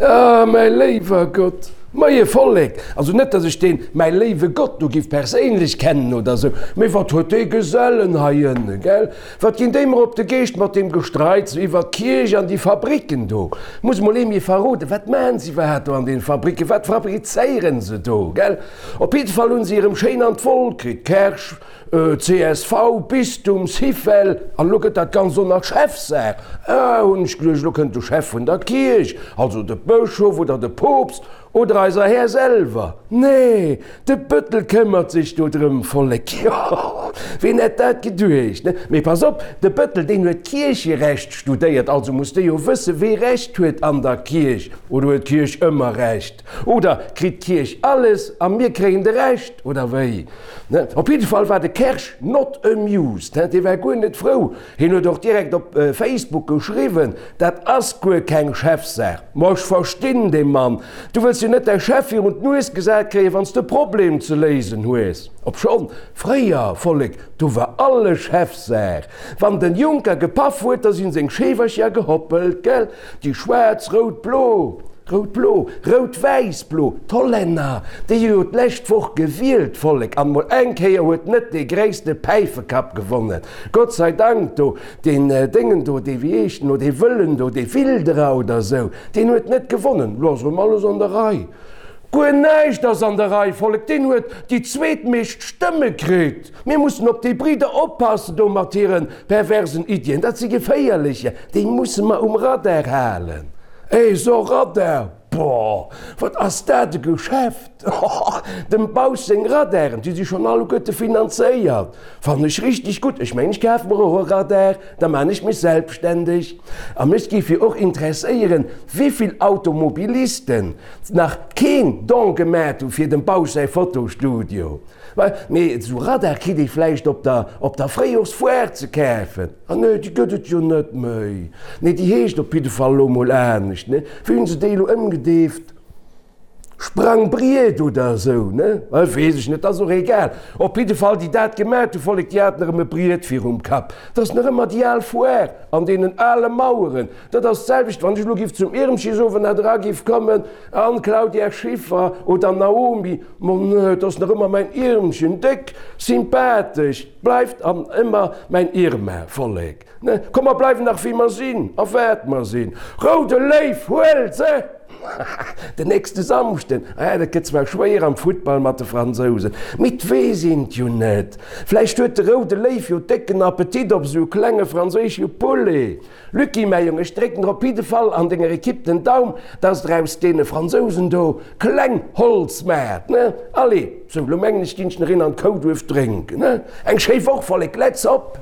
Ah, mäi léiwer Gott! Moie Vollek! Also net, dass ech deen mäi léiwe Gott do giff perséinlech kennen oder sou, mee wat huet dee Gesellen hei ënne, gell? Wat ginn déi mer op de Geescht mat deem Gestreits iwwer d'Kierch an déi Fabricken do? Muss mol ee mir verroden, wat maan se iwwerhaat do an den Fabricken? Wat fabrizéieren se do, gell? Op jidde Fall hunn se erëm schéin an d'Woll kritt, Kersch, csv, Bistum, Syfel, an elo gëtt dat Ganzt och nach Chefsaach. Ah, hunn ech geduecht, elo kënnt de Chef vun der Kierch, also de Bëschof oder de Poopst oder eiser Här selwer. Nee, de Bëttel këmmert sech do drëm, Vollek, jo, ween hätt dat geduecht, ne? Mee pass op, de Bëttel, deen huet Kiercherecht studéiert, also muss dee jo wëssen, wee Recht huet an der Kierch. Oder huet d'Kierch ëmmer Recht? Oder kritt d'Kierch alles a mir kréien de Rescht, oder wéi? Ne? Op jidde Fall war de Kersch not amused, he, dee war guer net frou. Hien huet och direkt op Facebook geschriwwen, Dat ass guer keng Chefsaach. Ma ech verstinn dee Mann. Du wëlls jo net däi Chef virun d'Nues gesat kréien, wann s de e Problem ze léisen hues. Obschonn, fréier, Vollek, do war alles Chefsaach. Wann den Juncker gepaff huet, da sinn seng Scheewercher gehoppelt, gell? Déi schwaarz, rout, blo, rout, blo, rout, wäiss, blo, d'Hollänner, déi hu jo d'lescht Woch gewielt, Vollek, an mol eng Kéier huet net dee gréisste Päifekapp gewonnen, Gott sei Dank do, deen Déngen do, dee, wéi heescht en lo, dee Wëllen do, dee Wilderer oder esou, deen huet net gewonnen. Lo ass erëm alles an der Rei. Guer näischt ass an der Rei, Vollek, deen huet déi zweetmeescht Stëmme kritt. Mir mussen op déi Bridder oppassen do mat hire perversen Iddien. Dat si geféierlecher, déi musse mer um Radar halen. Eh, so Radar, boah, wat ass dat e Geschäft! Dem Bausch seng Radaren, déi si schonn alleguerte finanzéiert. Fannen ech richteg gutt. Ech mengen, ech kafe mer och e Radar, da maan ech mech selbstständeg. A mech géif jo och interesséieren, wéivill Automobilisten nach keen Don gemat hu fir dem Bausch säi Fotostudio. Mee esou Radar kritt ee vläicht op der op der Fréijorsfoire ze kafen. Ah nee, déi gëtt et jo net méi. Nee, déi heescht op jidde Fall elo mol anescht, ne? Wéi hunn se déi elo ëmgedeeft? Sprangbriet oder esou, ne? Weess ech net, ass och egal. Op jidde Fall, déi dat gemat hu, Vollek, déi haten erëm e Briet virum Kapp. Dat ass nach ëmmer déi al Foire an deenen ale Maueren. Dat ass d'selwecht, wann ech elo giff zum Irmchisowend era giff kommen an Claudia Schiffer oder Naomi, Ma nee, et ass nach ëmmer mäin Irmchen, déck sympathesch, bleift an ëmmer mäin Irma, Vollek, ne? Komm, mer bleiwen nach wéi mer sinn a wat mer sinn. Roude Léiw, huel se! Den nächste Samschden, ah, dat gëtt zwar schwéier am Futtball mat de Fransousen, mee 't weess een 't jo net. Vläicht huet de Roude Léiw jo décken Appetit op esou e klenge franséische Poulet. Lucky, mäi Jong, ech drécken der op jidde Fall an denger Ekipp den Daum, dass der aus deene Fransousen do kleng Holz maacht, ne? Allez, sou, lo mengen ech, ginn ech nach een an d'Kouduerf drénken, ne? Eng schéi Woch, Vollek, let's op!